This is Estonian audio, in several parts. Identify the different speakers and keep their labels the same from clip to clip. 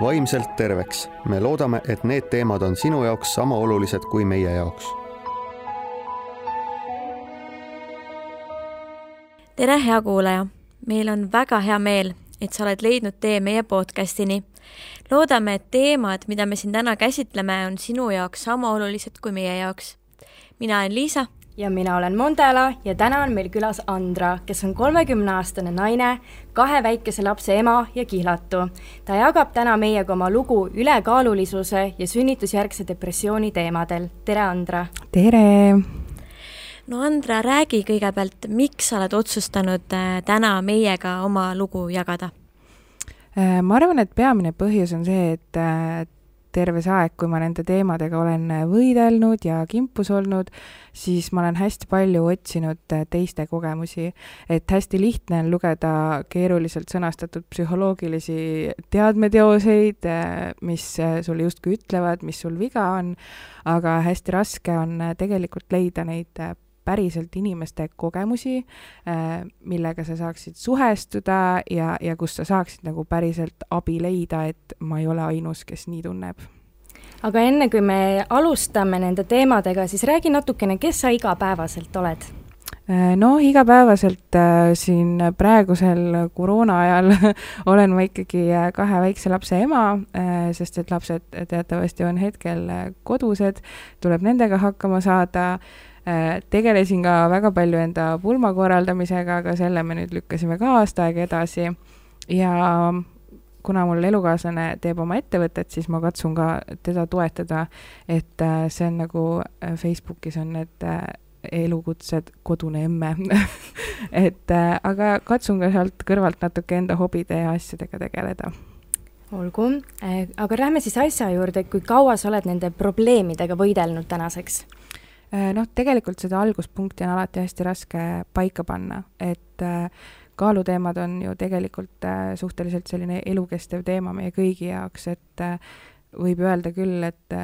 Speaker 1: vaimselt terveks. Me loodame, et need teemad on sinu jaoks sama olulised kui meie jaoks.
Speaker 2: Tere, hea kuulaja! Meil on väga hea meel, et sa oled leidnud tee meie podcastini. Loodame, et teemad, mida me siin täna käsitleme, on sinu jaoks sama olulised kui meie jaoks. Mina olen Liisa.
Speaker 3: Ja mina olen Mondela ja täna on meil külas Andra, kes on 30-aastane naine, 2 väikese lapse ema ja kihlatu. Ta jagab täna meiega oma lugu ülekaalulisuse ja sünnitusjärgse depressiooni teemadel. Tere, Andra!
Speaker 4: Tere!
Speaker 2: No Andra, räägi kõigepealt, miks sa oled otsustanud täna meiega oma lugu jagada?
Speaker 4: Ma arvan, et peamine põhjus on see, et terve see aeg, kui ma nende teemadega olen võidelnud ja kimpus olnud, siis ma olen hästi palju otsinud teiste kogemusi. Et hästi lihtne on lugeda keeruliselt sõnastatud psühholoogilisi teadmeteoseid, mis sulle justkui ütlevad, mis sul viga on, aga hästi raske on tegelikult leida neid päriselt inimeste kogemusi, millega sa saaksid suhestuda ja kus sa saaksid nagu päriselt abi leida, et ma ei ole ainus, kes nii tunneb.
Speaker 3: Aga enne kui me alustame nende teemadega, siis räägi natukene, kes sa igapäevaselt oled?
Speaker 4: No igapäevaselt siin praegusel koroona ajal olen ma ikkagi 2 väikse lapse ema, sest et lapsed teatavasti on hetkel kodused, tuleb nendega hakkama saada. Tegelesin ka väga palju enda pulma korraldamisega, aga selle me nüüd lükkasime ka aasta aega edasi ja kuna mul elukaaslane teeb oma ettevõtet, siis ma katsun ka teda toetada, et see on nagu Facebookis on need elukutsed kodune emme aga katsun ka sealt kõrvalt natuke enda hobide ja asjadega tegeleda.
Speaker 3: Olgu, aga lähme siis asja juurde, kui kaua sa oled nende probleemidega võidelnud tänaseks?
Speaker 4: Tegelikult seda alguspunkti on alati hästi raske paika panna, et kaaluteemad on ju tegelikult suhteliselt selline elukestev teema meie kõigi jaoks, et võib öelda küll, et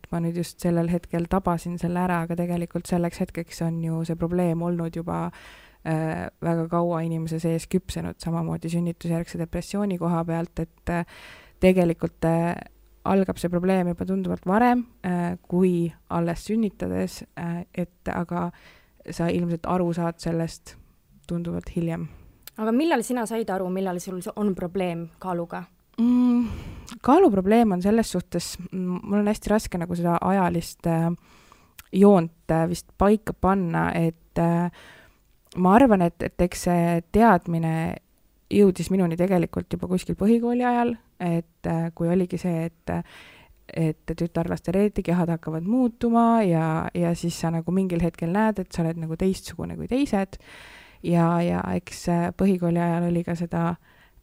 Speaker 4: ma nüüd just sellel hetkel tabasin selle ära, aga tegelikult selleks hetkeks on ju see probleem olnud juba väga kaua inimese sees küpsenud, samamoodi sünnitusjärgse depressiooni koha pealt, et tegelikult algab see probleem juba tunduvalt varem kui alles sünnitades, aga sa ilmselt aru saad sellest tunduvalt hiljem.
Speaker 3: Aga millal sina said aru, millal sul on probleem kaaluga?
Speaker 4: Kaaluprobleem on selles suhtes, mul on hästi raske nagu seda ajalist joont vist paika panna, et ma arvan, et eks see teadmine jõudis minuni tegelikult juba kuskil põhikooli ajal, et kui oligi see, et tütarlaste reetikehad hakkavad muutuma ja siis sa nagu mingil hetkel näed, et sa oled nagu teistsugune kui teised ja eks põhikooli ajal oli ka seda,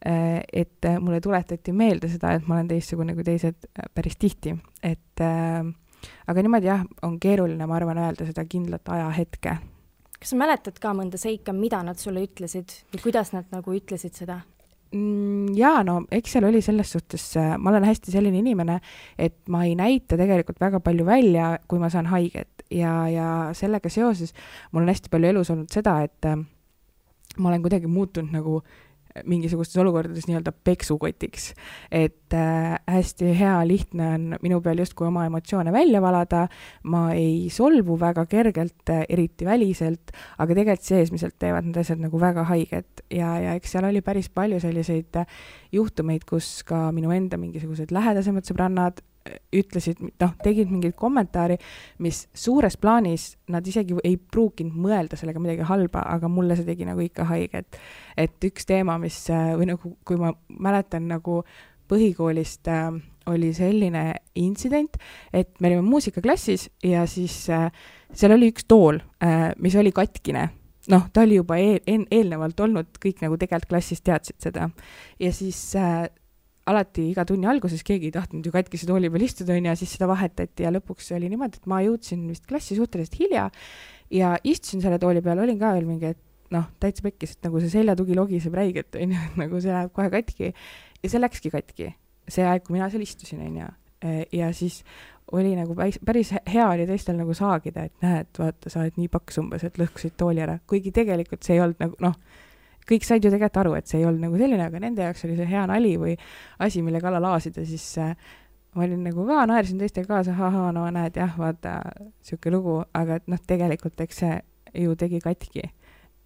Speaker 4: et mulle tuletati meelde seda, et ma olen teistsugune kui teised päris tihti, aga niimoodi jah, on keeruline, ma arvan, öelda seda kindlat ajahetke.
Speaker 3: Kas sa mäletad ka mõnda seika, mida nad sulle ütlesid või kuidas nad nagu ütlesid seda?
Speaker 4: Jaa, no eks seal oli selles suhtes, ma olen hästi selline inimene, et ma ei näita tegelikult väga palju välja, kui ma saan haiget ja sellega seoses mul on hästi palju elus olnud seda, et ma olen kuidagi muutunud nagu mingisugustes olukordades nii-öelda peksukotiks, et hästi hea lihtne on minu peal justkui oma emotsioone välja valada, ma ei solvu väga kergelt, eriti väliselt, aga tegelikult seesmiselt teevad need asjad nagu väga haiget ja eks seal oli päris palju selliseid juhtumeid, kus ka minu enda mingisugused lähedasemad sõbrannad ütlesid, tegid mingid kommentaari, mis suures plaanis nad isegi ei pruukinud mõelda sellega midagi halba, aga mulle see tegi nagu ikka haiget. Et üks teema, mis, või nagu, kui ma mäletan nagu põhikoolist oli selline intsident, et me olime muusikaklassis ja siis seal oli üks tool, mis oli katkine. Ta oli juba eelnevalt olnud, kõik nagu tegelikult klassis teadsid seda. Ja siis alati iga tunni alguses keegi ei tahtnud ju katkise tooli peal istuda ja siis seda vahetati ja lõpuks oli niimoodi, et ma jõudsin vist klassi suhteliselt hilja ja istusin selle tooli peal, olin ka veel mingi, et täitsa pekkis, et nagu see seljatugi logiseb räiget, nagu see läheb kohe katki ja see läkski katki, see aeg, kui mina seal istusin ja siis oli nagu päris hea oli teistel nagu saagida, et näed, vaata, sa oled nii paks umbes, et lõhkusid tooli ära, kuigi tegelikult see ei olnud nagu, kõik said ju tegelikult aru, et see ei olnud nagu selline, aga nende jaoks oli see hea nali või asi, mille kallal laasida, siis ma olin nagu ka, naersin teistega kaasa, no näed, jah, vaata, siuke lugu, aga et tegelikult eks see ju tegi katki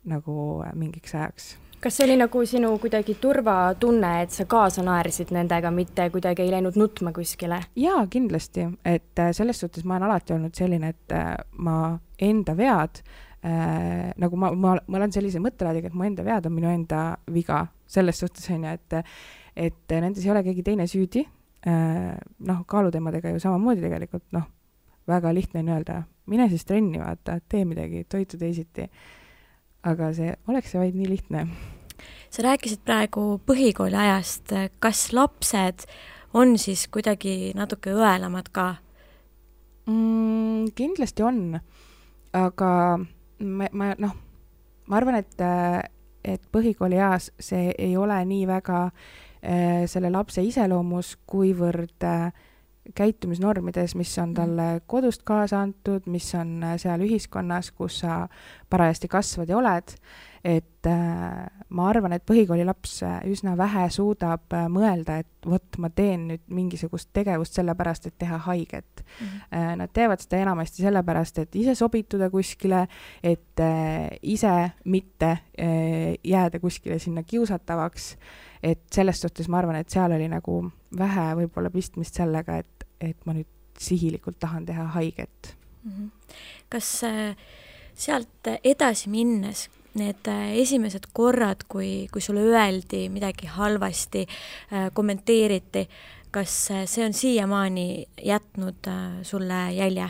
Speaker 4: nagu mingiks ajaks.
Speaker 3: Kas see oli nagu sinu kuidagi turvatunne, et sa kaasa naersid nendega, mitte kuidagi ei läinud nutma kuskile?
Speaker 4: Jaa, kindlasti, et selles suhtes ma olen alati olnud selline, et ma enda vead, nagu ma olen sellise mõttelaadiga, et mu enda vead on minu enda viga. Selles suhtes on ju, et nendes ei ole keegi teine süüdi. Kaaluteemadega ju samamoodi tegelikult, väga lihtne on öelda, mine siis trenni, vaata, tee midagi, toitu teisiti. Aga oleks see vaid nii lihtne.
Speaker 2: Sa rääkisid praegu põhikooli ajast, kas lapsed on siis kuidagi natuke õelamad ka?
Speaker 4: Kindlasti on, aga ma arvan, et põhikooli eas see ei ole nii väga selle lapse iseloomus, kuivõrd käitumisnormides, mis on talle kodust kaasa antud, mis on seal ühiskonnas, kus sa parajasti kasvad ja oled, et ma arvan, et põhikooli laps üsna vähe suudab mõelda, et vot ma teen nüüd mingisugust tegevust sellepärast, et teha haiget. Nad teevad seda enamasti sellepärast, et ise sobituda kuskile, et ise mitte jääda kuskile sinna kiusatavaks, et selles suhtes ma arvan, et seal oli nagu vähe võib-olla pistmist sellega, et ma nüüd sihilikult tahan teha haiget.
Speaker 2: Kas sealt edasi minnes need esimesed korrad, kui sulle öeldi midagi halvasti, kommenteeriti, kas see on siiamaani jätnud sulle jälje?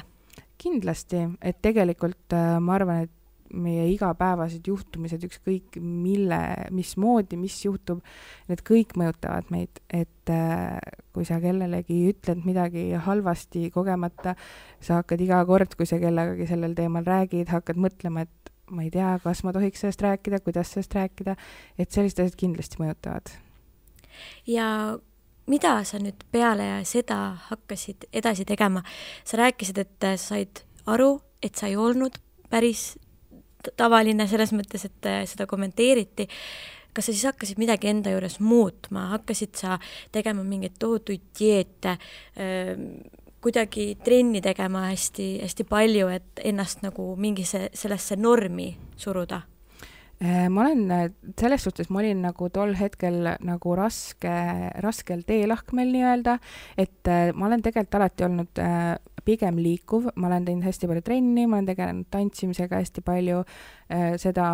Speaker 2: Kindlasti,
Speaker 4: et tegelikult ma arvan, et meie igapäevased juhtumised, ükskõik mismoodi, mis juhtub, need kõik mõjutavad meid, et kui sa kellelegi ütled midagi halvasti kogemata, sa hakkad iga kord, kui sa kellegagi sellel teemal räägid, hakkad mõtlema, et ma ei tea, kas ma tohiks sellest rääkida, kuidas sellest rääkida, et sellised asjad kindlasti mõjutavad.
Speaker 2: Ja mida sa nüüd peale seda hakkasid edasi tegema? Sa rääkisid, et said aru, et sa ei olnud päris tavaline selles mõttes, et seda kommenteeriti. Kas sa siis hakkasid midagi enda juures muutma? Hakkasid sa tegema mingeid tohutuid dieete, kuidagi trenni tegema hästi, hästi palju, et ennast nagu mingi sellesse normi suruda?
Speaker 4: Ma olen selles suhtes, ma olin nagu tol hetkel nagu raskel teelahkmel nii-öelda, et ma olen tegelikult alati olnud pigem liikuv, ma olen teinud hästi palju trenni, ma olen tegelenud tantsimisega hästi palju, seda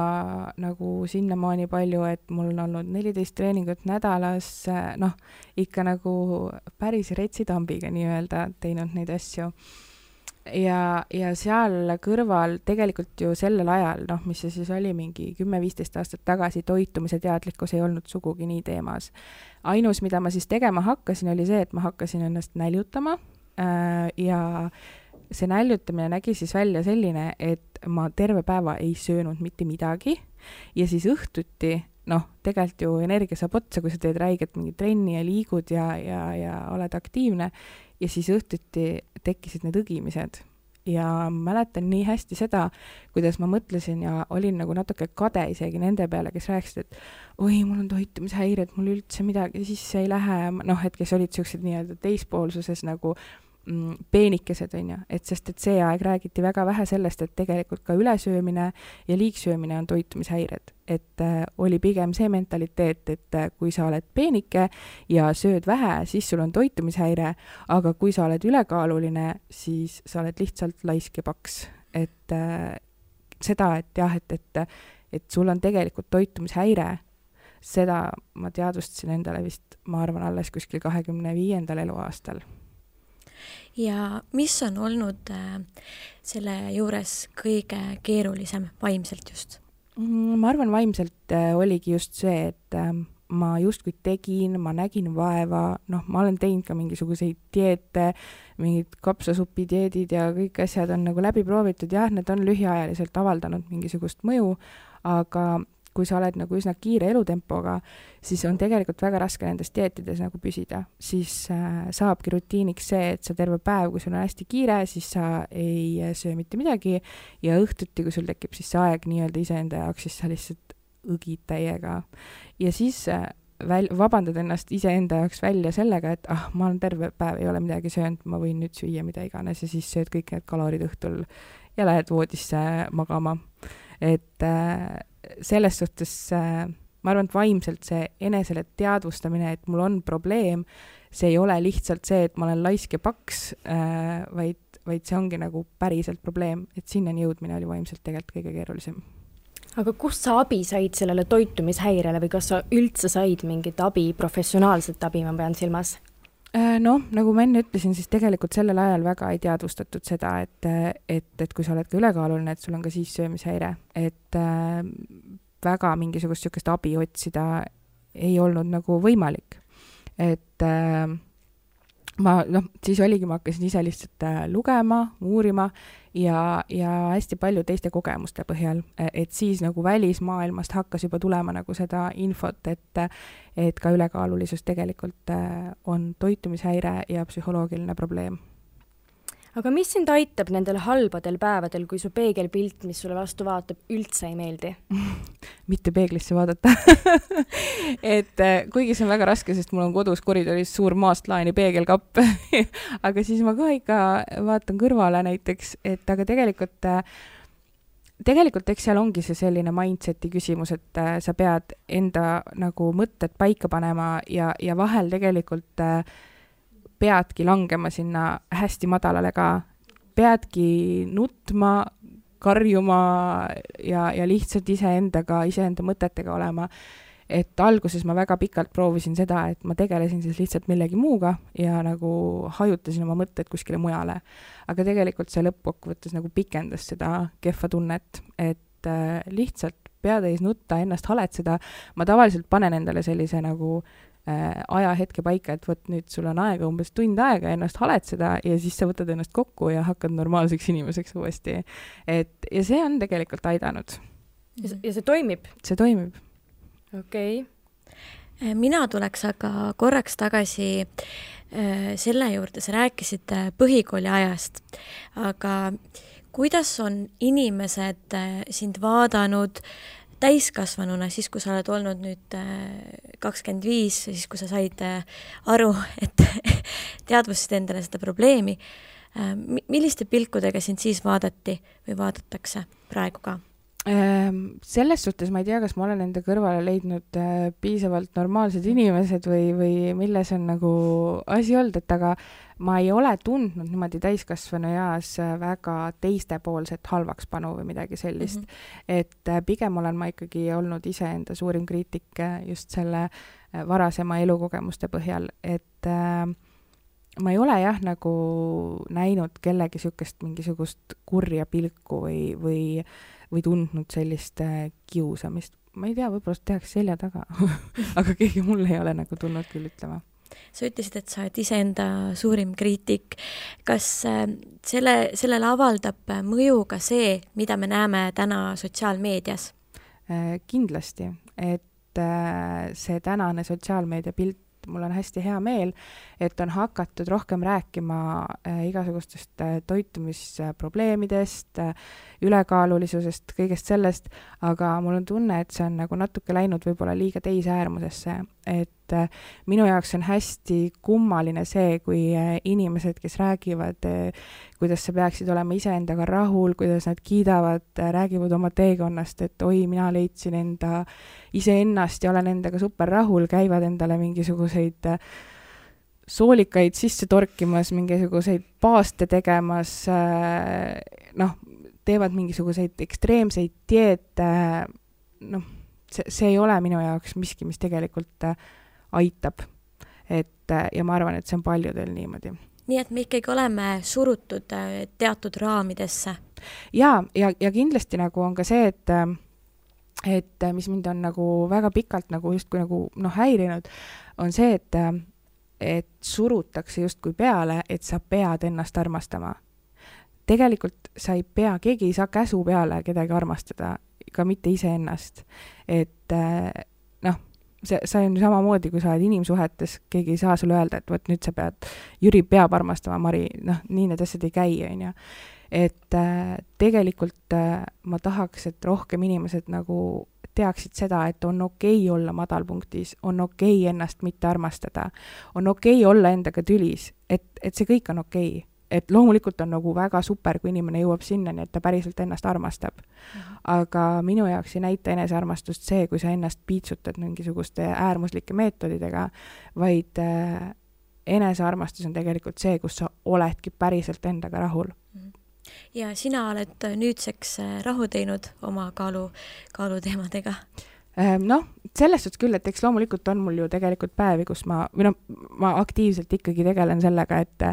Speaker 4: nagu sinnamaani palju, et mul on olnud 14 treeningut nädalas, ikka nagu päris retsitambiga nii-öelda teinud neid asju. Ja seal kõrval tegelikult ju sellel ajal, mis see siis oli mingi 10-15 aastat tagasi, toitumise teadlikkus ei olnud sugugi nii teemas. Ainus, mida ma siis tegema hakkasin, oli see, et ma hakkasin ennast näljutama ja see näljutamine nägi siis välja selline, et ma terve päeva ei söönud mitte midagi ja siis õhtuti, tegelikult ju energia saab otsa, kui sa teed räiget mingi trenni ja liigud ja oled aktiivne ja siis õhtuti tekkisid need õgimised. Ja mäletan nii hästi seda, kuidas ma mõtlesin ja olin nagu natuke kade isegi nende peale, kes rääkisid, et oi, mul on toitumishäired, mul üldse midagi sisse ei lähe, et kes olid sellised nii-öelda teispoolsuses nagu peenikesed, et sest et see aeg räägiti väga vähe sellest, et tegelikult ka ülesöömine ja liigsöömine on toitumishäired, et oli pigem see mentaliteet, et kui sa oled peenike ja sööd vähe, siis sul on toitumishäire, aga kui sa oled ülekaaluline, siis sa oled lihtsalt laisk ja paks, et seda, et jah, et sul on tegelikult toitumishäire, seda ma teadvustasin endale vist, ma arvan, alles kuskil 25. eluaastal.
Speaker 2: Ja mis on olnud selle juures kõige keerulisem vaimselt just?
Speaker 4: Ma arvan, vaimselt oligi just see, et ma justkui tegin, ma nägin vaeva, ma olen teinud ka mingisuguseid dieete, mingid kapsasupi dieedid ja kõik asjad on nagu läbi proovitud, jah, need on lühiajaliselt avaldanud mingisugust mõju, aga kui sa oled nagu üsna kiire elutempoga, siis on tegelikult väga raske nendes dieetides nagu püsida. Siis saabki rutiiniks see, et sa terve päev, kui sul on hästi kiire, siis sa ei söö mitte midagi ja õhtuti, kui sul tekib siis see aeg nii-öelda iseenda jaoks, siis sa lihtsalt õgid täiega. Ja siis vabandad ennast iseenda jaoks välja sellega, et ma olen terve päev, ei ole midagi söönud, ma võin nüüd süüa mida iganes ja siis sööd kõik need kalorid õhtul ja lähed voodisse magama. Et selles suhtes ma arvan, et vaimselt see enesele teadvustamine, et mul on probleem, see ei ole lihtsalt see, et ma olen laisk ja paks, vaid see ongi nagu päriselt probleem, et sinnani jõudmine oli vaimselt tegelikult kõige keerulisem.
Speaker 3: Aga kust sa abi said sellele toitumishäirele või kas sa üldse said mingit abi, professionaalset abi, ma pean silmas?
Speaker 4: Nagu ma enne ütlesin, siis tegelikult sellel ajal väga ei teadvustatud seda, et kui sa oled ka ülekaaluline, et sul on ka siis söömishäire, et väga mingisugust sükest abi otsida ei olnud nagu võimalik. Et siis oligi, ma hakkasin ise lihtsalt lugema, uurima ja hästi palju teiste kogemuste põhjal, et siis nagu välismaailmast hakkas juba tulema nagu seda infot, et ka ülekaalulisus tegelikult on toitumishäire ja psühholoogiline probleem.
Speaker 3: Aga mis sind aitab nendel halbadel päevadel, kui su peegelpilt, mis sulle vastu vaatab, üldse ei meeldi?
Speaker 4: Mitte peeglisse vaadata. Et kuigi see on väga raske, sest mul on kodus koridoris suur maastlaani peegelkapp, aga siis ma ka ikka vaatan kõrvale näiteks, et aga tegelikult eks seal ongi see selline mindseti küsimus, et sa pead enda nagu mõtted paika panema ja vahel tegelikult peadki langema sinna hästi madalale ka, peadki nutma, karjuma ja lihtsalt iseenda mõtetega olema. Et alguses ma väga pikalt proovisin seda, et ma tegelesin siis lihtsalt millegi muuga ja nagu hajutasin oma mõtted kuskile mujale. Aga tegelikult see lõppkokkuvõttes nagu pikendas seda kehva tunnet, et lihtsalt peatäis nutta, ennast haletseda. Ma tavaliselt panen endale sellise nagu ajahetke paika, et võt nüüd sul on aega umbes tund aega ennast haletseda ja siis sa võtad ennast kokku ja hakkad normaalseks inimeseks uuesti. Ja see on tegelikult aidanud.
Speaker 3: Ja see toimib?
Speaker 4: See toimib.
Speaker 3: Okei.
Speaker 2: Mina tuleks aga korraks tagasi selle juurde, sa rääkisid põhikooli ajast, aga kuidas on inimesed sind vaadanud täiskasvanuna, siis kui sa oled olnud nüüd 25, siis kui sa said aru, et teadvustasid endale seda probleemi, milliste pilkudega sind siis vaadati või vaadatakse praegu ka?
Speaker 4: Selles suhtes ma ei tea, kas ma olen enda kõrvale leidnud piisavalt normaalsed inimesed või milles on nagu asi olnud, et aga ma ei ole tundnud niimoodi täiskasvanu eas väga teistepoolset halvakspanu või midagi sellist. Et pigem olen ma ikkagi olnud iseenda suurim kriitik just selle varasema elukogemuste põhjal, et ma ei ole jah nagu näinud kellegi mingisugust kurja pilku või tundnud sellist kiusamist. Ma ei tea, võib-olla tehakse selja taga, aga keegi mul ei ole nagu tulnud küll ütlema.
Speaker 2: Sa ütlesid, et sa oled iseenda suurim kriitik. Kas sellele avaldab mõju ka see, mida me näeme täna sotsiaalmeedias?
Speaker 4: Kindlasti, et see tänane sotsiaalmeedia pilt, mul on hästi hea meel, et on hakatud rohkem rääkima igasugustest toitumisprobleemidest, ülekaalulisusest, kõigest sellest, aga mul on tunne, et see on nagu natuke läinud võib-olla liiga teise äärmusesse, et minu jaoks on hästi kummaline see, kui inimesed, kes räägivad, kuidas sa peaksid olema iseendaga rahul, kuidas nad kiidavad, räägivad oma teekonnast, et oi, mina leidsin enda iseennast ja olen endaga super rahul, käivad endale mingisuguseid soolikaid sisse torkimas, mingisuguseid paaste tegemas, teevad mingisuguseid ekstreemseid dieete, see ei ole minu jaoks miski, mis tegelikult aitab. Ja ma arvan, et see on paljudel niimoodi.
Speaker 2: Nii et me ikkagi oleme surutud teatud raamidesse.
Speaker 4: Ja kindlasti nagu on ka see, et mis mind on nagu väga pikalt nagu justkui nagu häirinud, on see, et surutakse justkui peale, et sa pead ennast armastama. Tegelikult sa ei pea, keegi ei saa käsu peale kedagi armastada, ka mitte iseennast. Et see on samamoodi, kui sa oled inimsuhetes, keegi ei saa sulle öelda, et võt nüüd sa pead, Jüri peab armastama Mari, nii need asjad ei käi, on ju. Et tegelikult ma tahaks, et rohkem inimesed nagu teaksid seda, et on okei olla madalpunktis, on okei ennast mitte armastada, on okei olla endaga tülis, et see kõik on okei. Et loomulikult on nagu väga super, kui inimene jõuab sinnani, et ta päriselt ennast armastab. Aga minu jaoks ei näita enesearmastust see, kui sa ennast piitsutad mingisuguste äärmuslike meetodidega, vaid enesearmastus on tegelikult see, kus sa oledki päriselt endaga rahul.
Speaker 2: Ja sina oled nüüdseks rahu teinud oma kaaluteemadega?
Speaker 4: Noh, selles suhtes küll, et eks loomulikult on mul ju tegelikult päevi, kus ma aktiivselt ikkagi tegelen sellega, et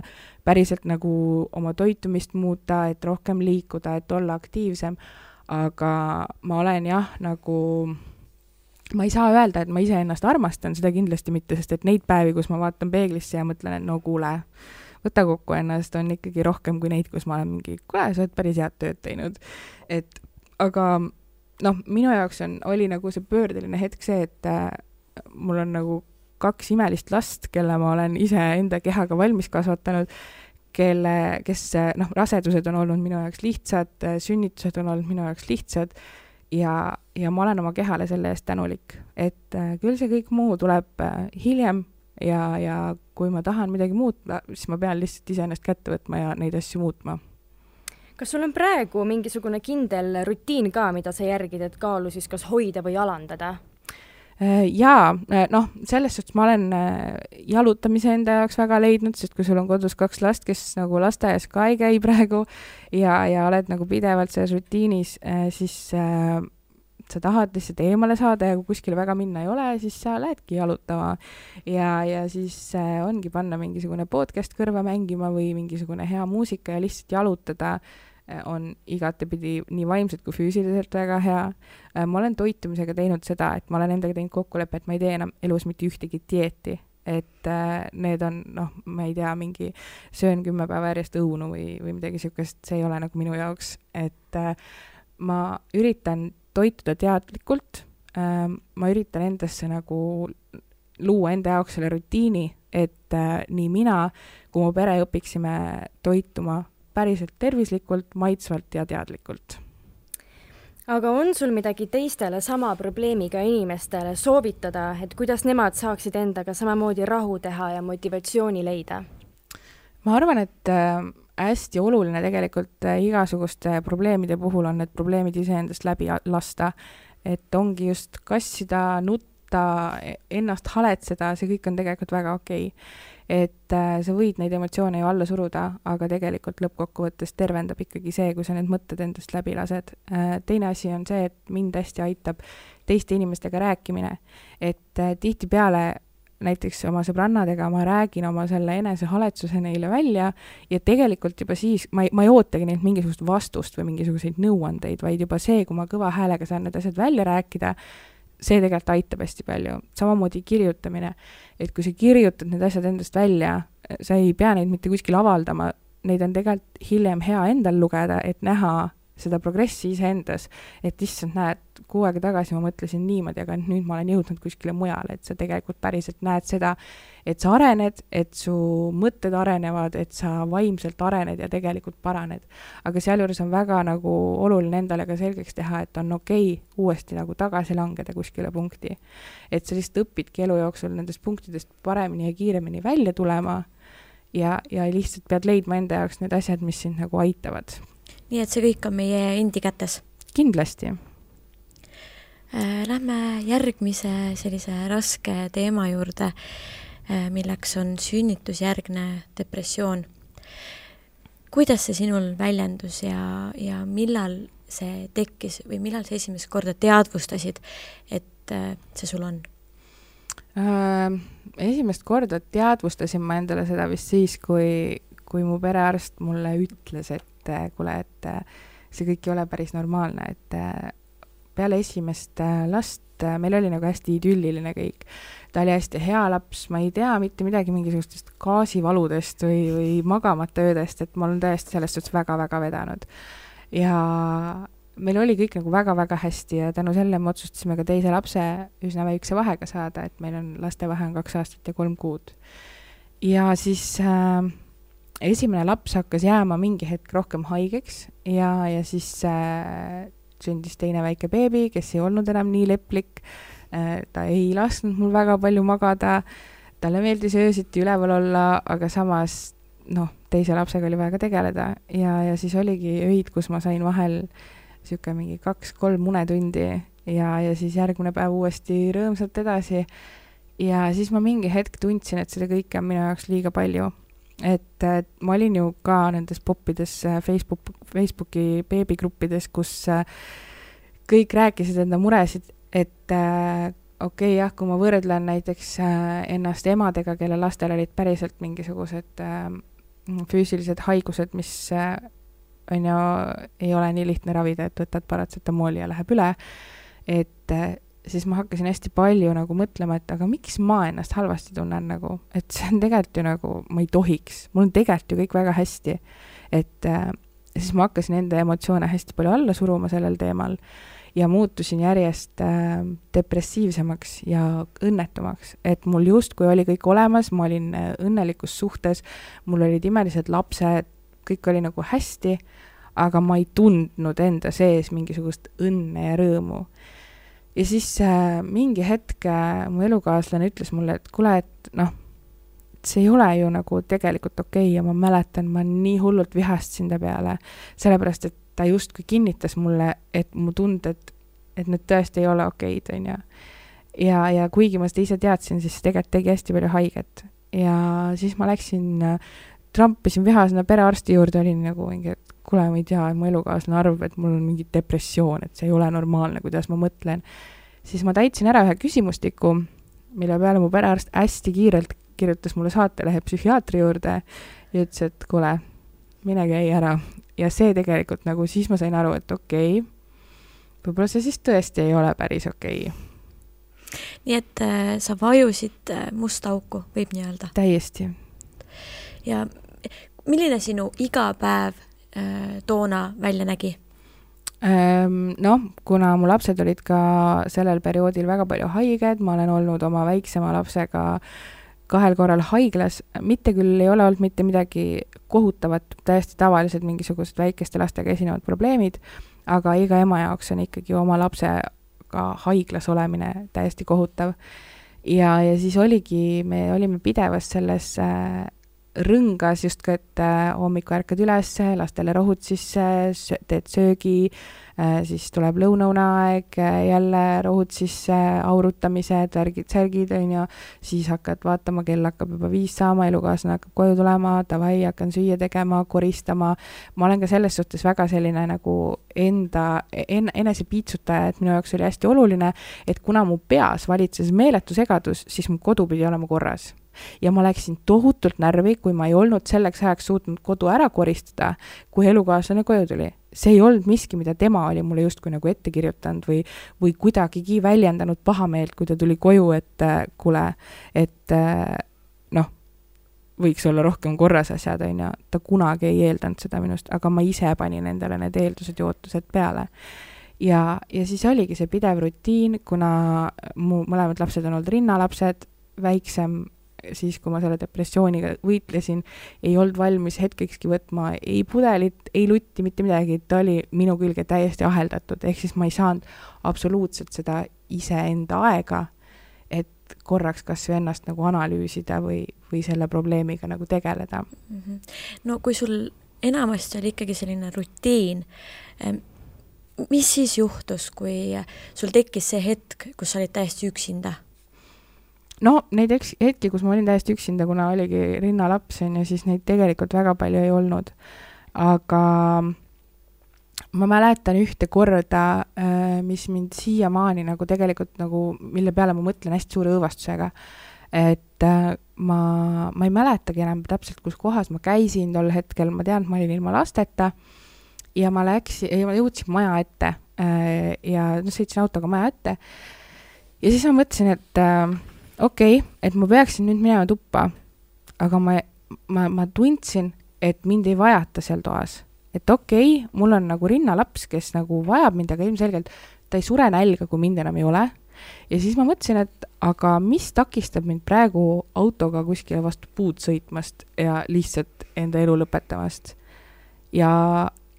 Speaker 4: päriselt nagu oma toitumist muuta, et rohkem liikuda, et olla aktiivsem, aga ma olen jah, nagu ma ei saa öelda, et ma ise ennast armastan, seda kindlasti mitte, sest et neid päevi, kus ma vaatan peeglisse ja mõtlen, et no kuule, võta kokku ennast, on ikkagi rohkem kui neid, kus ma olen mingi, kuule, sa oled päris head tööd teinud. Aga minu jaoks oli nagu see pöördeline hetk see, et mul on nagu 2 imelist last, kelle ma olen ise enda kehaga valmis kasvatanud, kes rasedused on olnud minu jaoks lihtsad, sünnitused on olnud minu jaoks lihtsad ja ma olen oma kehale selle eest tänulik. Et küll see kõik muu tuleb hiljem ja kui ma tahan midagi muuta, siis ma pean lihtsalt ise ennast kätte võtma ja neid asju muutma.
Speaker 3: Kas sul on praegu mingisugune kindel rutiin ka, mida sa järgid, et kaalu siis kas hoida või alandada?
Speaker 4: Jaa, selles suhtes ma olen jalutamise enda jaoks väga leidnud, sest kui sul on kodus 2 last, kes nagu lasteaias ka ei käi praegu ja oled nagu pidevalt selles rutiinis, siis sa tahad lihtsalt eemale saada ja kui kuskile väga minna ei ole, siis sa lähedki jalutama ja siis ongi panna mingisugune podcast kõrva mängima või mingisugune hea muusika ja lihtsalt jalutada on igatepidi nii vaimselt kui füüsiliselt väga hea. Ma olen toitumisega teinud seda, et ma olen endaga teinud kokkuleppe, et ma ei tee enam elus mitte ühtegi dieeti, et need on, ma ei tea, mingi söön 10 päeva järjest õunu või midagi sihukest, see ei ole nagu minu jaoks, et ma üritan toituda teadlikult, ma üritan endasse nagu luua enda jaoks selle rutiini, et nii mina kui mu pere õpiksime toituma päriselt tervislikult, maitsvalt ja teadlikult.
Speaker 3: Aga on sul midagi teistele sama probleemiga inimestele soovitada, et kuidas nemad saaksid endaga samamoodi rahu teha ja motivatsiooni leida?
Speaker 4: Ma arvan, et hästi oluline tegelikult igasuguste probleemide puhul on need probleemid iseendast läbi lasta, et ongi just kassida, nutta, ennast haletseda, see kõik on tegelikult väga okei. Et sa võid neid emotsioone ju alla suruda, aga tegelikult lõppkokkuvõttes tervendab ikkagi see, kui sa need mõtted endast läbi lased. Teine asi on see, et mind hästi aitab teiste inimestega rääkimine, et tihtipeale näiteks oma sõbrannadega ma räägin oma selle enesehaletsuse neile välja ja tegelikult juba siis ma ei ootagi neilt mingisugust vastust või mingisuguseid nõuandeid, vaid juba see, kui ma kõva häälega saan need asjad välja rääkida, see tegelikult aitab hästi palju. Samamoodi kirjutamine, et kui sa kirjutad need asjad endast välja, sa ei pea neid mitte kuskil avaldama, neid on tegelikult hiljem hea endal lugeda, et näha seda progressi iseendas, et issand näed, 6 aega tagasi ma mõtlesin niimoodi, aga nüüd ma olen jõudnud kuskile mujale, et sa tegelikult päriselt näed seda, et sa arened, et su mõtted arenevad, et sa vaimselt arened ja tegelikult paraned. Aga sealjuures on väga nagu oluline endale ka selgeks teha, et on okei uuesti nagu tagasi langeda kuskile punkti. Et sa lihtsalt õpidki elu jooksul nendest punktidest paremini ja kiiremini välja tulema ja lihtsalt pead leidma enda jaoks need asjad, mis sind nagu aitavad.
Speaker 2: Nii et see kõik on meie endi kätes.
Speaker 4: Kindlasti.
Speaker 2: Lähme järgmise sellise raske teema juurde, milleks on sünnitusjärgne depressioon. Kuidas see sinul väljendus ja millal see tekkis või millal sa esimest korda teadvustasid, et see sul on?
Speaker 4: Esimest korda teadvustasin ma endale seda vist siis, kui mu perearst mulle ütles, et kuule, et see kõik ei ole päris normaalne, et peale esimest last meil oli nagu hästi idülliline kõik. Ta oli hästi hea laps, ma ei tea mitte midagi mingisugustest gaasivaludest või magamata öödest, et ma olen tõesti sellest suhtes väga-väga vedanud. Ja meil oli kõik nagu väga-väga hästi ja tänu selle me otsustasime ka teise lapse üsna väikse vahega saada, et meil on laste vahe on 2 aastat ja 3 kuud. Ja siis esimene laps hakkas jääma mingi hetk rohkem haigeks ja siis sündis teine väike beebi, kes ei olnud enam nii leplik, ta ei lasknud mul väga palju magada, talle meeldis öösiti üleval olla, aga samas teise lapsega oli vaja ka tegeleda ja siis oligi öid, kus ma sain vahel siuke mingi 2-3 unetundi ja siis järgmine päev uuesti rõõmsalt edasi. Ja siis ma mingi hetk tundsin, et seda kõike on minu jaoks liiga palju. Et ma olin ju ka nendes poppides Facebooki beebigruppides, kus kõik rääkisid enda muresid, et okei, jah, kui ma võrdlen näiteks ennast emadega, kelle lastel olid päriselt mingisugused füüsilised haigused, mis on ju, ei ole nii lihtne ravida, et võtad paratsetamooli ja läheb üle, et siis ma hakkasin hästi palju nagu mõtlema, et aga miks ma ennast halvasti tunnen nagu, et see on tegelikult ju nagu, ma ei tohiks, mul on tegelikult ju kõik väga hästi, et siis ma hakkasin enda emotsioone hästi palju alla suruma sellel teemal ja muutusin järjest depressiivsemaks ja õnnetumaks, et mul justkui oli kõik olemas, ma olin õnnelikus suhtes, mul olid imelised lapsed, kõik oli nagu hästi, aga ma ei tundnud enda sees mingisugust õnne ja rõõmu. Ja siis mingi hetk mu elukaaslane ütles mulle, et kuule, et see ei ole ju nagu tegelikult okei ja ma mäletan, ma nii hullult vihastasin ta peale, sellepärast, et ta justkui kinnitas mulle, et mu tunded, et need tõesti ei ole okeid, on ju. Ja kuigi ma seda ise teadsin, siis tegelikult tegi hästi palju haiget. Ja siis ma läksin, trampisin vihasena perearsti juurde, olin nagu mingi, et kuule, ma ei tea, mu elukaaslane arvab, et mul on mingi depressioon, et see ei ole normaalne, kuidas ma mõtlen. Siis ma täitsin ära ühe küsimustiku, mille peale mu perearst hästi kiirelt kirjutas mulle saatelehe psühhiaatri juurde ja ütles, et kuule, mine käi ära. Ja see tegelikult nagu siis ma sain aru, et okei, võib-olla see siis tõesti ei ole päris okei.
Speaker 2: Nii et sa vajusid musta auku, võib nii öelda?
Speaker 4: Täiesti.
Speaker 2: Ja milline sinu iga päev toona välja nägi?
Speaker 4: Kuna mu lapsed olid ka sellel perioodil väga palju haiged, ma olen olnud oma väiksema lapsega 2 korral haiglas, mitte küll ei ole olnud mitte midagi kohutavat, täiesti tavalised mingisugused väikeste lastega esinevad probleemid, aga iga ema jaoks on ikkagi oma lapsega haiglas olemine täiesti kohutav. Ja siis me olime pidevas selles rõngas justkui, et hommiku ärkad üles, lastele rohud sisse, teed söögi, siis tuleb lõunauneaeg, jälle rohud sisse, aurutamised, särgid, siis hakkad vaatama, kell hakkab juba 5 saama, elukaaslane hakkab koju tulema, davai, hakkan süüa tegema, koristama. Ma olen ka selles suhtes väga selline nagu enese piitsutaja, et minu jaoks oli hästi oluline, et kuna mu peas valitses meeletu segadus, siis mu kodu pidi olema korras. Ja ma läksin tohutult närvi, kui ma ei olnud selleks ajaks suutnud kodu ära koristada, kui elukaaslane koju tuli. See ei olnud miski, mida tema oli mulle justkui nagu ette kirjutanud või kuidagigi väljendanud pahameelt, kui ta tuli koju, et kuule, et võiks olla rohkem korras asjad, ta kunagi ei eeldanud seda minust, aga ma ise panin endale need eeldused ja ootused peale. Ja siis oligi see pidev rutiin, kuna mu mõlemad lapsed on olnud rinnalapsed, väiksem siis, kui ma selle depressiooniga võitlesin, ei olnud valmis hetkekski võtma ei pudelit, ei lutti, mitte midagi, ta oli minu külge täiesti aheldatud, ehk siis ma ei saanud absoluutselt seda iseenda aega, et korraks kas või ennast nagu analüüsida või selle probleemiga nagu tegeleda.
Speaker 2: No kui sul enamasti oli ikkagi selline rutiin, mis siis juhtus, kui sul tekkis see hetk, kus sa olid täiesti üksinda?
Speaker 4: No neid hetki, kus ma olin täiesti üksinda, kuna oligi rinnalaps, ja siis neid tegelikult väga palju ei olnud. Aga ma mäletan ühte korda, mis mind siiamaani nagu tegelikult nagu, mille peale ma mõtlen hästi suure õõvastusega, et ma ei mäletagi enam täpselt, kus kohas ma käisin tol hetkel, ma tean, et ma olin ilma lasteta ja ma jõudsin maja ette ja sõitsin autoga maja ette ja siis ma mõtlesin, et okei, et ma peaksin nüüd minema tuppa, aga ma tundsin, et mind ei vajata seal toas. Et okei, mul on nagu rinnalaps, kes nagu vajab mind, aga ilmselgelt ta ei sure nälga, kui mind enam ei ole. Ja siis ma mõtlesin, et aga mis takistab mind praegu autoga kuskile vastu puud sõitmast ja lihtsalt enda elu lõpetamast. Ja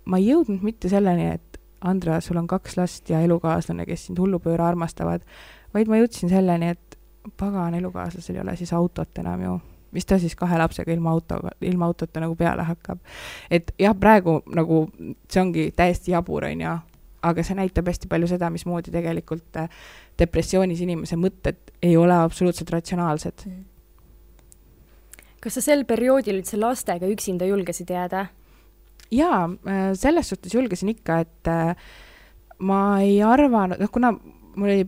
Speaker 4: ma ei jõudnud mitte selleni, et Andra, sul on 2 last ja elukaaslane, kes sind hullupööra armastavad, vaid ma jõudsin selleni, et pagan elukaaslasel ei ole siis autot enam ju. Mis ta siis 2 lapsega ilma autota nagu peale hakkab. Et jah, praegu nagu see ongi täiesti jabur, on ja, aga see näitab hästi palju seda, mismoodi tegelikult depressioonis inimese mõtted ei ole absoluutselt ratsionaalsed.
Speaker 3: Kas sa sel perioodil üldse lastega üksinda julgesid jääda?
Speaker 4: Jaa, selles suhtes julgesin ikka, et ma ei arvanud, kuna mul oli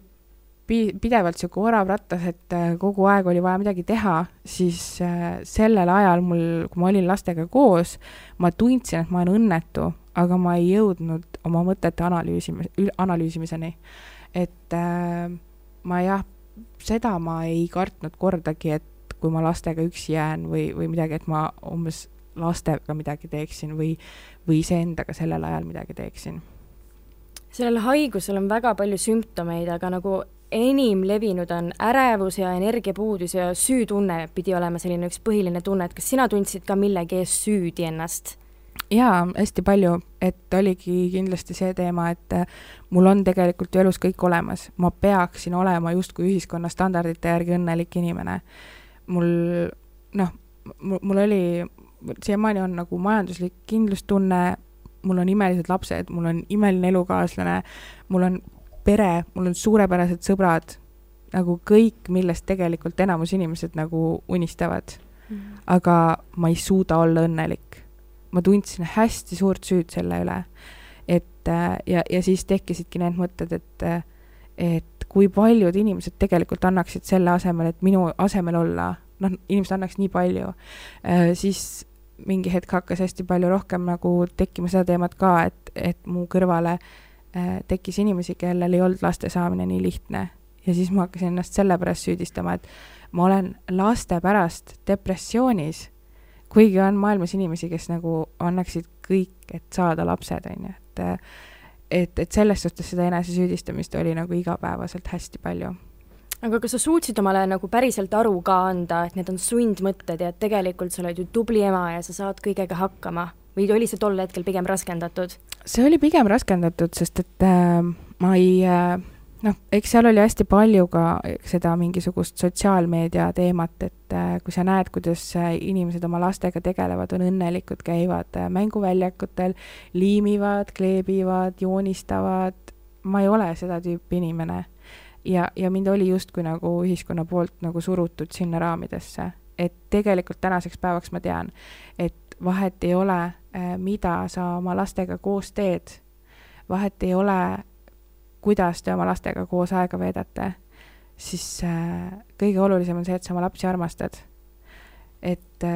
Speaker 4: pidevalt siuke orav rattas, et kogu aeg oli vaja midagi teha, siis sellel ajal kui ma olin lastega koos, ma tundsin, et ma olen õnnetu, aga ma ei jõudnud oma mõtete analüüsimiseni. Et seda ma ei kartnud kordagi, et kui ma lastega üksi jään või midagi, et ma umbes lastega midagi teeksin või iseendaga sellel ajal midagi teeksin.
Speaker 3: Sellel haigusel on väga palju sümptomeid, aga nagu enim levinud on ärevus ja energiapuudus ja süütunne pidi olema selline üks põhiline tunne, et kas sina tundsid ka millegi ees süüdi ennast?
Speaker 4: Jaa, hästi palju, et oligi kindlasti see teema, et mul on tegelikult ju elus kõik olemas. Ma peaksin olema justkui ühiskonna standardite järgi õnnelik inimene. Mul oli, siiamaani on nagu majanduslik kindlustunne, mul on imelised lapsed, mul on imeline elukaaslane, mul on pere, mul on suurepärased sõbrad, nagu kõik, millest tegelikult enamus inimesed nagu unistavad. Aga ma ei suuda olla õnnelik. Ma tundsin hästi suurt süüd selle üle. Ja siis tekkisidki need mõtted, et kui paljud inimesed tegelikult annaksid selle asemel, et minu asemel olla, inimesed annaks nii palju, siis mingi hetk hakkas hästi palju rohkem nagu tekkima seda teemat ka, et mu kõrvale tekkis inimesi, kellel ei olnud laste saamine nii lihtne. Ja siis ma hakkasin ennast selle pärast süüdistama, et ma olen laste pärast depressioonis, kuigi on maailmas inimesi, kes nagu annaksid kõik, et saada lapsed, et selles suhtes seda enese süüdistamist oli nagu igapäevaselt hästi palju.
Speaker 3: Aga kas sa suutsid omale nagu päriselt aru ka anda, et need on sundmõtted ja et tegelikult sa oled ju tubli ema ja sa saad kõigega hakkama? Või oli see tol hetkel pigem raskendatud?
Speaker 4: See oli pigem raskendatud, sest et ma ei... eks seal oli hästi palju ka seda mingisugust sotsiaalmeedia teemat, et kui sa näed, kuidas inimesed oma lastega tegelevad, on õnnelikud, käivad mänguväljakutel, liimivad, kleebivad, joonistavad. Ma ei ole seda tüüpi inimene. Ja mind oli justkui nagu ühiskonna poolt nagu surutud sinna raamidesse. Et tegelikult tänaseks päevaks ma tean, et vahet ei ole, mida sa oma lastega koos teed. Vahet ei ole, kuidas te oma lastega koos aega veedate, siis kõige olulisem on see, et sa oma lapsi armastad. Et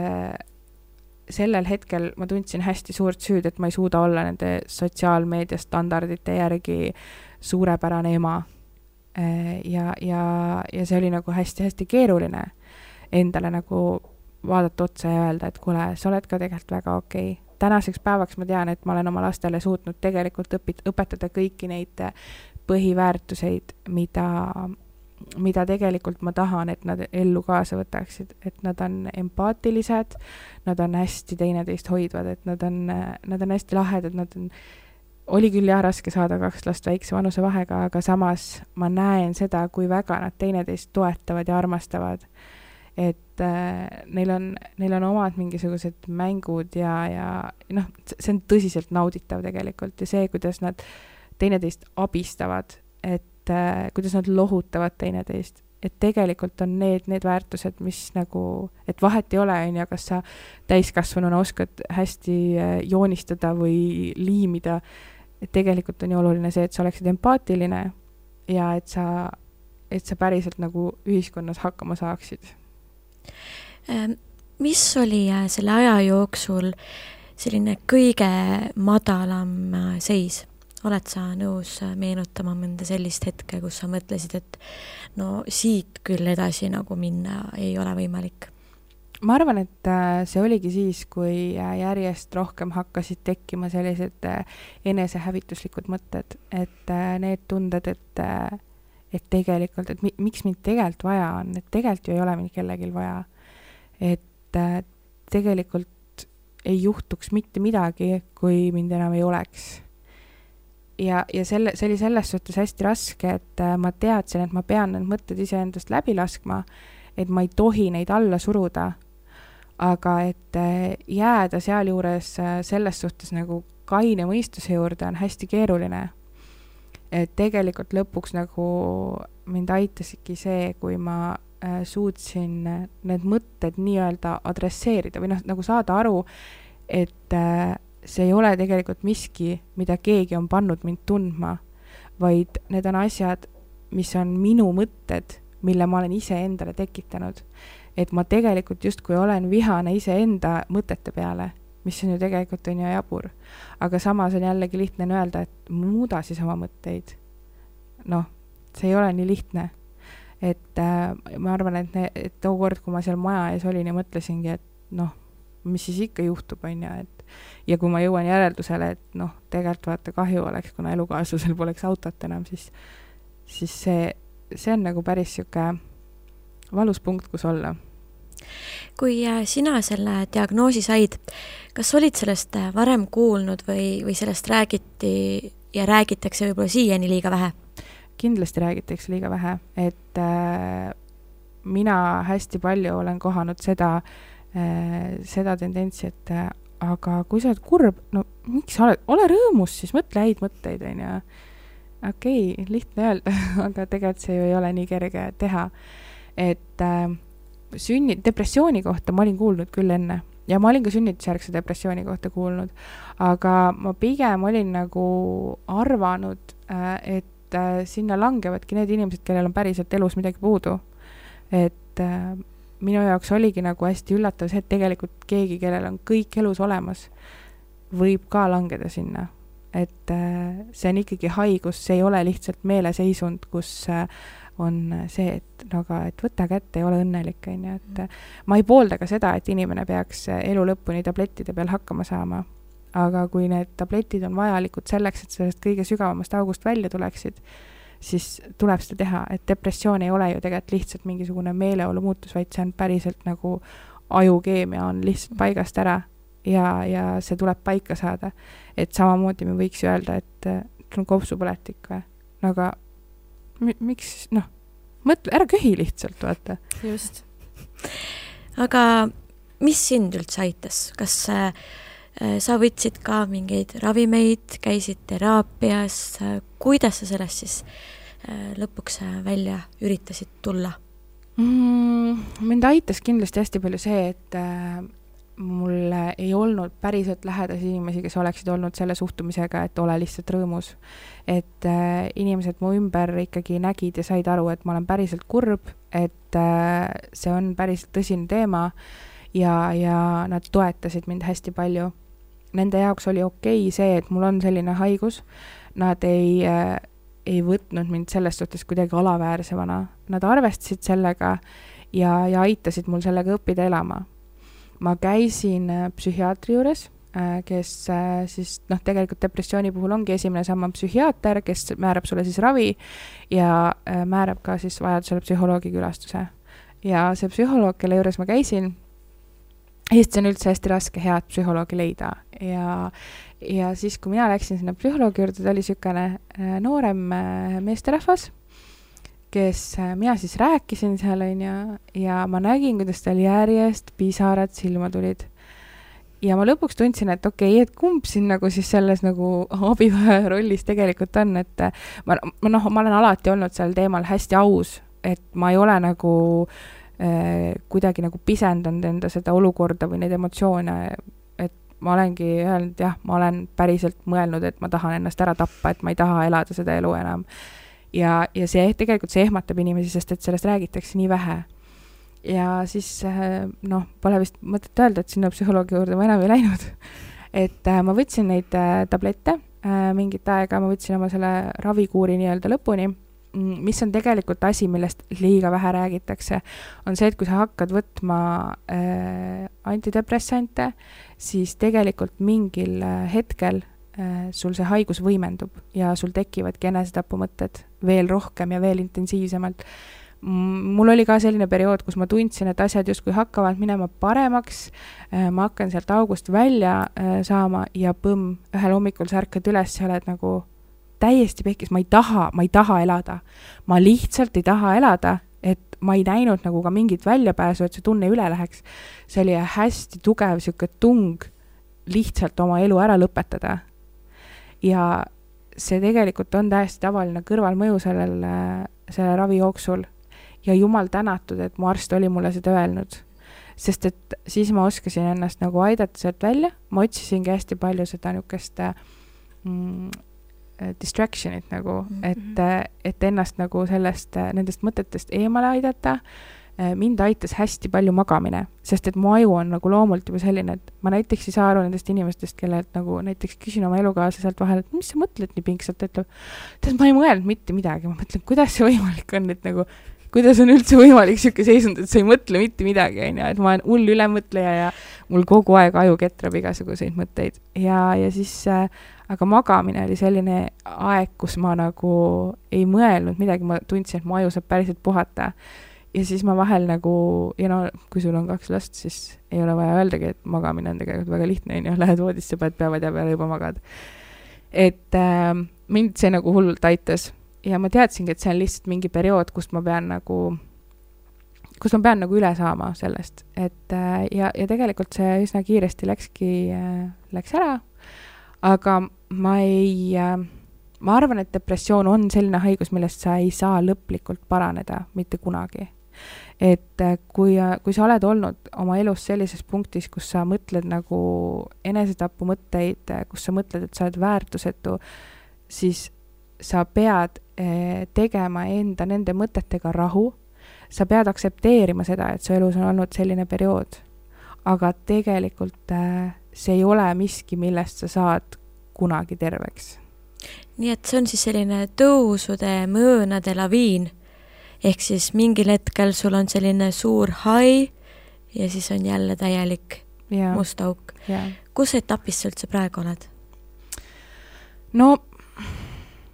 Speaker 4: sellel hetkel ma tundsin hästi suurt süüd, et ma ei suuda olla nende sotsiaalmeedia standardite järgi suurepärane ema. Ja see oli nagu hästi-hästi keeruline endale nagu vaadata otsa ja öelda, et kuule, sa oled ka tegelikult väga okei. Tänaseks päevaks ma tean, et ma olen oma lastele suutnud tegelikult õpetada kõiki neid põhiväärtuseid, mida tegelikult ma tahan, et nad ellu kaasa võtaksid, et nad on empaatilised, nad on hästi teineteist hoidvad, et nad on hästi lahedad, oli küll jah raske saada 2 last väikse vanuse vahega, aga samas ma näen seda, kui väga nad teineteist toetavad ja armastavad. Et neil on omad mingisugused mängud ja see on tõsiselt nauditav tegelikult ja see, kuidas nad teineteist abistavad, et kuidas nad lohutavad teineteist, et tegelikult on need väärtused, mis nagu, et vahet ei ole, kas sa täiskasvanuna oskad hästi joonistada või liimida, et tegelikult on ju oluline see, et sa oleksid empaatiline ja et sa päriselt nagu ühiskonnas hakkama saaksid.
Speaker 2: Mis oli selle aja jooksul selline kõige madalam seis? Oled sa nõus meenutama mõnda sellist hetke, kus sa mõtlesid, et no siit küll edasi nagu minna ei ole võimalik?
Speaker 4: Ma arvan, et see oligi siis, kui järjest rohkem hakkasid tekkima sellised enesehävituslikud mõtted, et need tunded, et tegelikult, et miks mind tegelikult vaja on, et tegelikult ju ei ole mind kellegil vaja, et tegelikult ei juhtuks mitte midagi, kui mind enam ei oleks. see oli selles suhtes hästi raske, et ma teadsin, et ma pean need mõtted iseendast läbi laskma, et ma ei tohi neid alla suruda, aga et jääda sealjuures selles suhtes nagu kaine mõistuse juurde on hästi keeruline. Et tegelikult lõpuks nagu mind aitasidki see, kui ma suutsin need mõtted nii-öelda adresseerida või nagu saada aru, et see ei ole tegelikult miski, mida keegi on pannud mind tundma, vaid need on asjad, mis on minu mõtted, mille ma olen ise endale tekitanud. Et ma tegelikult justkui olen vihane ise enda mõtete peale, mis on ju tegelikult on ju jabur. Aga samas on jällegi lihtne öelda, et muuda siis oma mõtteid. Noh, see ei ole nii lihtne. Et ma arvan, et too kord, kui ma seal maja ees olin ja mõtlesingi, et mis siis ikka juhtub, on ju, et ja kui ma jõuan järeldusele, et tegelikult vaata kahju oleks, kuna elukaaslusel poleks autot enam, siis see on nagu päris siuke valus punkt, kus olla.
Speaker 2: Kui sina selle diagnoosi said, kas olid sellest varem kuulnud või sellest räägiti ja räägitakse võib-olla siiani liiga vähe?
Speaker 4: Kindlasti räägitakse liiga vähe, et mina hästi palju olen kohanud seda tendentsi, et aga kui sa oled kurb, miks sa ole rõõmus, siis mõtle häid mõtteid, on ju. Okei, lihtne öelda, aga tegelikult see ju ei ole nii kerge teha. Et depressiooni kohta ma olin kuulnud küll enne ja ma olin ka sünnitusjärgse depressiooni kohta kuulnud, aga ma pigem olin nagu arvanud, et sinna langevadki need inimesed, kellel on päriselt elus midagi puudu. Et minu jaoks oligi nagu hästi üllatav see, et tegelikult keegi, kellel on kõik elus olemas, võib ka langeda sinna. Et see on ikkagi haigus, see ei ole lihtsalt meeleseisund, kus on see, et võta kätte ja ole õnnelik. Et ma ei poolda ka seda, et inimene peaks elu lõpuni tablettide peal hakkama saama. Aga kui need tabletid on vajalikud selleks, et sellest kõige sügavamast august välja tuleksid, siis tuleb seda teha, et depressioon ei ole ju tegelikult lihtsalt mingisugune meeleolu muutus, vaid see on päriselt nagu ajukeemia on lihtsalt paigast ära ja see tuleb paika saada. Et samamoodi me võiks ju öelda, et sul on kopsupõletik või? Aga miks, mõtle, ära köhi lihtsalt, vaata.
Speaker 2: Just. Aga mis sind üldse aitas? Kas sa võtsid ka mingeid ravimeid, käisid teraapias, kuidas sa sellest siis lõpuks välja üritasid tulla?
Speaker 4: Mind aitas kindlasti hästi palju see, et mul ei olnud päriselt lähedasi inimesi, kes oleksid olnud selle suhtumisega, et ole lihtsalt rõõmus. Et inimesed mu ümber ikkagi nägid ja said aru, et ma olen päriselt kurb, et see on päriselt tõsine teema ja nad toetasid mind hästi palju. Nende jaoks oli okei see, et mul on selline haigus. Nad ei võtnud mind selles suhtes kuidagi alaväärsemana. Nad arvestasid sellega ja aitasid mul sellega õppida elama. Ma käisin psühhiaatri juures, kes siis tegelikult depressiooni puhul ongi esimene samm psühhiaater, kes määrab sulle siis ravi ja määrab ka siis vajadusele psühholoogi külastuse. Ja see psühholoog, kelle juures ma käisin, Eestis on üldse hästi raske head psühholoogi leida ja siis, kui mina läksin sinna psühholoogi juurde, ta oli sükene noorem meesterahvas, kes mina siis rääkisin seal ja ma nägin, kuidas tal järjest pisarad silma tulid. Ja ma lõpuks tundsin, et okei, et kumb siin nagu siis selles nagu abivaja rollis tegelikult on, et ma olen alati olnud seal teemal hästi aus, et ma ei ole nagu kuidagi nagu pisendanud enda seda olukorda või neid emotsioone, et ma olengi öelnud, jah, ma olen päriselt mõelnud, et ma tahan ennast ära tappa, et ma ei taha elada seda elu enam. Ja see tegelikult see ehmatab inimesi, sest et sellest räägitakse nii vähe. Ja siis, pole vist mõtet öelda, et sinna psühholoogi juurde ma enam ei läinud. Et ma võtsin neid tablette mingit aega, ma võtsin oma selle ravikuuri nii-öelda lõpuni, mis on tegelikult asi, millest liiga vähe räägitakse, on see, et kui sa hakkad võtma antidepressante, siis tegelikult mingil hetkel sul see haigus võimendub ja sul tekivadki enesetapumõtted veel rohkem ja veel intensiivsemalt. Mul oli ka selline periood, kus ma tundsin, et asjad justkui hakkavad minema paremaks, ma hakkan sealt august välja saama ja ühel hommikul sa ärkad üles ja oled nagu täiesti pekkis, ma ei taha elada. Ma lihtsalt ei taha elada, et ma ei näinud nagu ka mingit väljapääsu, et see tunne üle läheks. See oli hästi tugev siuke tung lihtsalt oma elu ära lõpetada. Ja see tegelikult on täiesti tavaline kõrvalmõju selle ravi jooksul. Ja jumal tänatud, et mu arst oli mulle seda öelnud. Sest et siis ma oskasin ennast nagu aidata sealt välja. Ma otsisingi hästi palju seda niukest distractionit nagu, et ennast nagu nendest mõtetest eemale aidata. Mind aitas hästi palju magamine, sest et mu aju on nagu loomult juba selline, et ma näiteks ei saa aru nendest inimestest, kellelt nagu näiteks küsin oma elukaaslaselt vahel, et mis sa mõtled nii pingsalt, ütleb, tead, ma ei mõelnud mitte midagi, ma mõtlen, kuidas see võimalik on, et nagu, kuidas on üldse võimalik siuke seisund, et sa ei mõtle mitte midagi, et ma olen hull ülemõtleja ja mul kogu aeg aju ketrab igasuguseid mõtteid ja siis aga magamine oli selline aeg, kus ma nagu ei mõelnud midagi, ma tundsin, et mu aju saab päriselt puhata. Ja siis ma vahel nagu, ja no, kui sul on 2 last, siis ei ole vaja öeldagi, et magamine on tegelikult väga lihtne, lähed voodisse, paned päevad ja peale juba magad. Et mind see nagu hullult aitas ja ma teadsingi, et see on lihtsalt mingi periood, kus ma pean nagu üle saama sellest. Et, ja tegelikult see üsna kiiresti läks ära, aga ma arvan, et depressioon on selline haigus, millest sa ei saa lõplikult paraneda mitte kunagi. Et kui sa oled olnud oma elus sellises punktis, kus sa mõtled nagu enesetapu mõtteid, kus sa mõtled, et sa oled väärtusetu, siis sa pead tegema enda nende mõtetega rahu. Sa pead aksepteerima seda, et su elus on olnud selline periood. Aga tegelikult see ei ole miski, millest sa saad kunagi terveks.
Speaker 2: Nii et see on siis selline tõusude mõõnade laviin. Ehk siis mingil hetkel sul on selline suur hai ja siis on jälle täielik must auk. Kus etapis sa üldse praegu oled?
Speaker 4: No,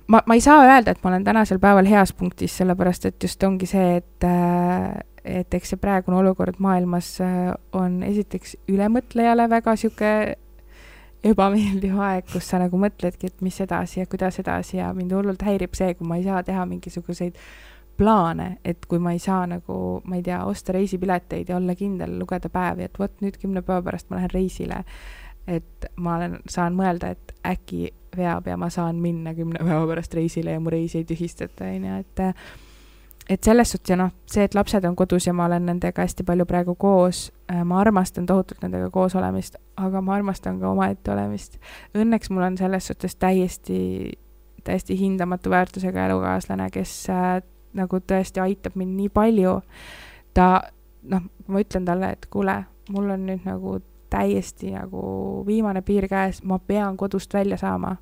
Speaker 4: ma ei saa öelda, et ma olen tänasel päeval heas punktis, sellepärast et just ongi see, et eks see praegune olukord maailmas on esiteks ülemõtlejale väga siuke ebameeldiv aeg, kus sa nagu mõtledki, et mis edasi ja kuidas edasi ja mind hullult häirib see, kui ma ei saa teha mingisuguseid plaane, et kui ma ei saa nagu, ma ei tea, osta reisipileteid ja olla kindel, lugeda päevi, et võt nüüd 10 päeva pärast ma lähen reisile, et ma saan mõelda, et äkki veab ja ma saan minna 10 päeva pärast reisile ja mu reisi ei tühistata, et selles suhtes ja see, et lapsed on kodus ja ma olen nendega hästi palju praegu koos, ma armastan tohutult nendega koos olemist, aga ma armastan ka omaette olemist. Õnneks mul on selles suhtes täiesti hindamatu väärtusega elukaaslane, kes nagu tõesti aitab mind nii palju. Ma ütlen talle, et kuule, mul on nüüd nagu täiesti nagu viimane piir käes, ma pean kodust välja saama.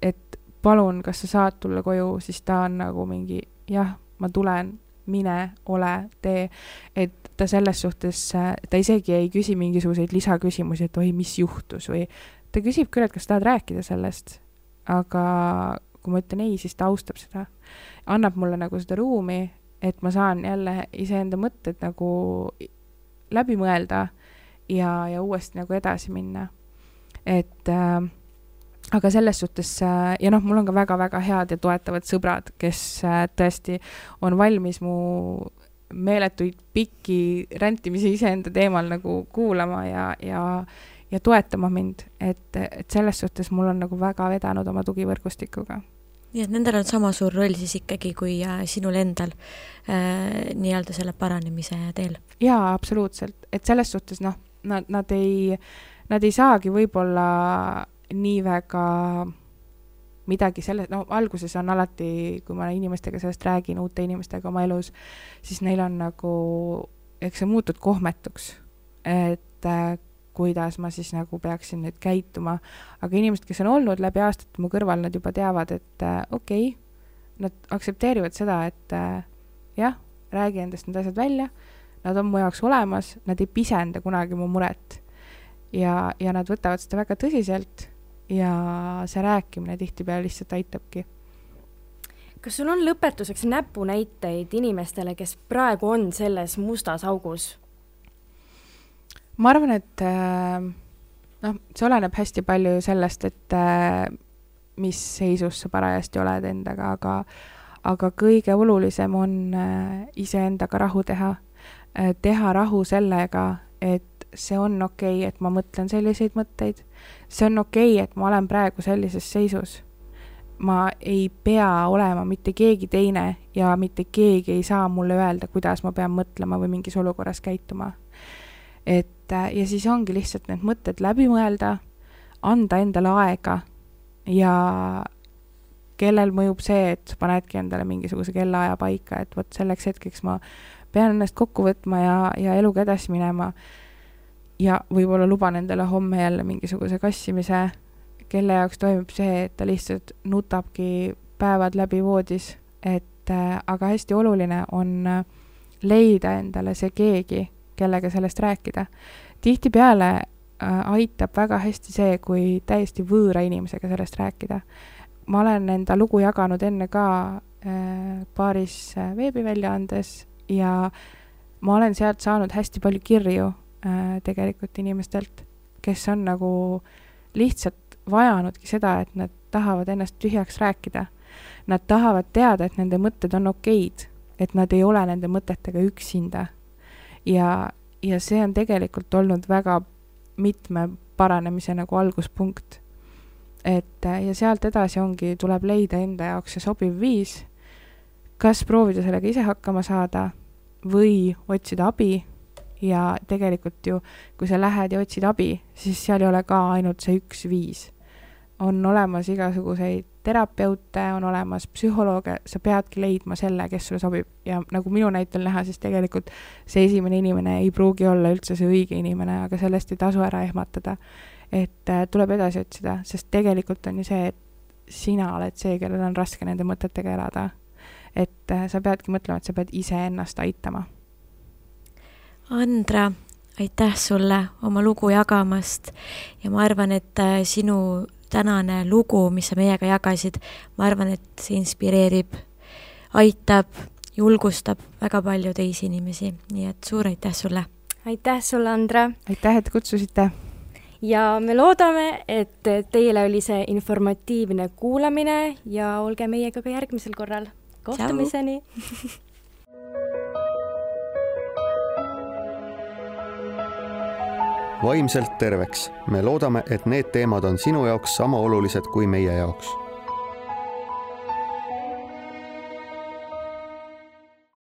Speaker 4: Et palun, kas sa saad tulla koju, siis ta on nagu mingi, jah, ma tulen, mine, ole, tee. Et ta selles suhtes, ta isegi ei küsi mingisuguseid lisaküsimusi, et oi, mis juhtus või ta küsib küll, et kas tahad rääkida sellest, aga kui ma ütlen ei, siis ta austab seda. Annab mulle nagu seda ruumi, et ma saan jälle iseenda mõtted nagu läbi mõelda ja uuesti nagu edasi minna. Et aga selles suhtes, ja mul on ka väga-väga head ja toetavad sõbrad, kes tõesti on valmis mu meeletuid pikki räntimisi iseenda teemal nagu kuulama ja toetama mind, et selles suhtes mul on nagu väga vedanud oma tugivõrgustikuga.
Speaker 2: Nii et nendel on sama suur roll siis ikkagi kui sinul endal nii-öelda selle paranemise teel.
Speaker 4: Jaa, absoluutselt. Et selles suhtes nad ei saagi võib-olla nii väga midagi selle, alguses on alati, kui ma inimestega sellest räägin, uute inimestega oma elus, siis neil on nagu, eks see muutud kohmetuks, et kuidas ma siis nagu peaksin nüüd käituma. Aga inimesed, kes on olnud läbi aastate mu kõrval, nad juba teavad, et okei, nad aksepteerivad seda, et jah, räägi endast need asjad välja, nad on mu jaoks olemas, nad ei pisenda kunagi mu muret ja nad võtavad seda väga tõsiselt ja see rääkimine tihtipeale lihtsalt aitabki.
Speaker 3: Kas sul on lõpetuseks näpunäiteid inimestele, kes praegu on selles mustas augus?
Speaker 4: Ma arvan, et see oleneb hästi palju sellest, et mis seisus sa parajasti oled endaga, aga kõige olulisem on iseendaga rahu teha. Teha rahu sellega, et see on okei, et ma mõtlen selliseid mõtteid. See on okei, et ma olen praegu sellises seisus. Ma ei pea olema mitte keegi teine ja mitte keegi ei saa mulle öelda, kuidas ma pean mõtlema või mingis olukorras käituma. Ja siis ongi lihtsalt need mõtted läbi mõelda, anda endale aega ja kellel mõjub see, et panedki endale mingisuguse kellaaja paika, et võt selleks hetkeks ma pean ennast kokku võtma ja eluga edasi minema ja võib-olla luban endale homme jälle mingisuguse kassimise, kelle jaoks toimub see, et ta lihtsalt nutabki päevad läbi voodis, aga hästi oluline on leida endale see keegi, kellega sellest rääkida. Tihtipeale aitab väga hästi see, kui täiesti võõra inimesega sellest rääkida. Ma olen enda lugu jaganud enne ka paaris veebiväljaandes ja ma olen sealt saanud hästi palju kirju tegelikult inimestelt, kes on nagu lihtsalt vajanudki seda, et nad tahavad ennast tühjaks rääkida. Nad tahavad teada, et nende mõtted on okeid, et nad ei ole nende mõtetega üksinda. Ja see on tegelikult olnud väga mitme paranemise nagu alguspunkt. Ja sealt edasi tuleb leida enda jaoks see sobiv viis, kas proovida sellega ise hakkama saada või otsida abi ja tegelikult ju, kui sa lähed ja otsid abi, siis seal ei ole ka ainult see üks viis. On olemas igasuguseid terapeute, on olemas psühholooge, sa peadki leidma selle, kes sulle sobib ja nagu minu näitel näha, siis tegelikult see esimene inimene ei pruugi olla üldse see õige inimene, aga sellest ei tasu ära ehmatada, et tuleb edasi otsida, sest tegelikult on ju see, et sina oled see, kellel on raske nende mõtetega elada. Et sa peadki mõtlema, et sa pead ise ennast aitama.
Speaker 2: Andra, aitäh sulle oma lugu jagamast ja ma arvan, et sinu tänane lugu, mis sa meiega jagasid, ma arvan, et see inspireerib, aitab, julgustab väga palju teisi inimesi, nii et suur aitäh sulle.
Speaker 3: Aitäh sulle, Andra.
Speaker 4: Aitäh, et kutsusite.
Speaker 3: Ja me loodame, et teile oli see informatiivne kuulamine ja olge meiega ka järgmisel korral. Kohtumiseni!
Speaker 1: Vaimselt terveks. Me loodame, et need teemad on sinu jaoks sama olulised kui meie jaoks.